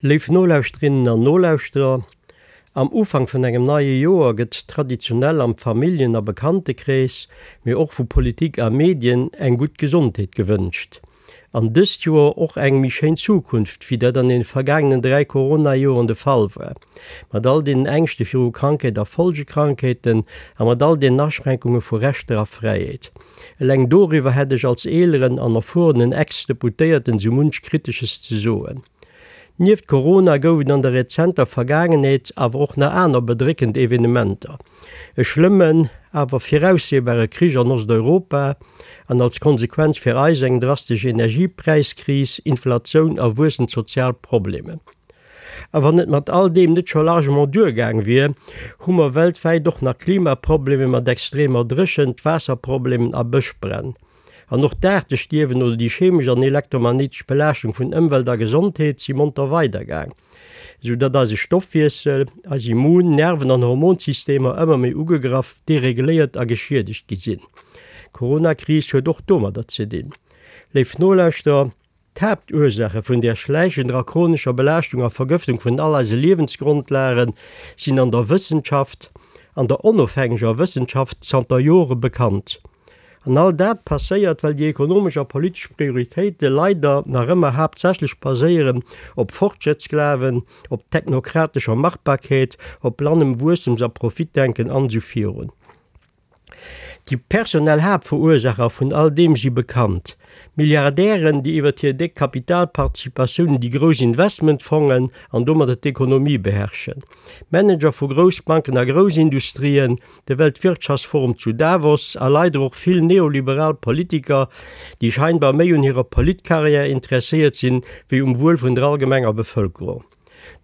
Léif Nolauschterinnen an Nolauschterer, am Ufank vun engem neie Joer gëtt traditionell am Familljen a Bekanntekrees, mee och vu Politik a Medien eng gutt Gesondheet gewënscht. An dëst Joer och eng méi schéin Zukunft, wéi dat an den vergaangenen 3 Corona-Joren de Fall war. Mat all deenen Ängschte viru Krankheet a Folgekrankheeten a mat all deenen Aschränkunge vu Rechter a Fräiheet. Eleng doriwwer hätt ech als eeleren an erfuerenen Ex-Deputéierten sou munch Kritesches ze soen. Nieft Corona gouf et an der rezenter Vergaangenheet awer och nach aner bedréckend Evenementer, e schlëmmen, awer viraussehbare Krich an Osteuropa an als Konsequenz fir eis eng drastesch Energiepräiskris, Inflatioun a wuessend sozial Problemen. A wann et mat all deem net scho largement duergaang wier, hu mer weltwäit och nach Klimaproblemen mat extremer Dréchent, Waasserproblemen a Bëschbränn. An och d'Aartestierwen oder déi chemesch an elektromagnéitesch Belaaschtung vun Ëmwelt a Gesondheet si monter weidergaang, esou datt eise Stoffwiessel, eis Immun-, Nerven an Hormonsystemer ëmmer méi ugegraff, dereguléiert a geschiedegt gi sinn. D'Coronakris huet och domadder ze dinn. Léif Nolauschterer, D'Haaptursaache vun där schläichender a chronescher Belaaschtung a Vergëftung vun all eise Liewensgrondlage sinn an der Wëssenschaft, an der onofhängeger Wëssenschaft, zanter Jore bekannt. An all dat passéiert, well déi ekonomesch a politesch Prioritéite leider nach ëmmer haaptsächlech baséieren op Fortschrëttsglawen, op technokratescher Machbarkeet, op blannem Wuessems a Profitdenken an esou virun. Déi personell Haaptverursaacher vun all deem si bekannt, Milliardären, déi iwwert hir déck Kapitalparticipatiounen déi grouss Investmentfongen an domadder d'Ekonomie beherrschen, Manager vu Groussbanken a Groussindustrien, de Weltwirtschaftsforum zu Davos a leider och vill neoliberal Politiker, déi scheinbar méi un hirer Politkarriär interesséiert sinn, wéi um Wuel vun der allgemenger Bevëlkerung.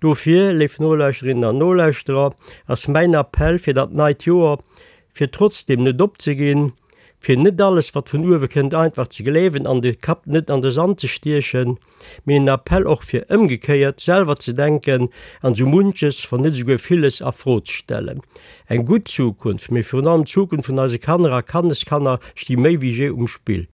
Dofir, léif Nolauschterinnen an Nolauschterer, ass mäin Appell fir dat neit Joer, fir trotzdeem net opzeginn, fir net alles, wat vun uewe kënnt, einfach ze gleewen an de Kapp net an de Sand ze stiechen, mee en Appell och fir ëmgekéiert selwer ze denken an esou munches, wann net esouguer villes, a Fro ze stellen. Eng gutt Zukunft, mee virun allem d'Zukunft vun eise Kanner a Kanneskanner sti méi wéi jee um Spill.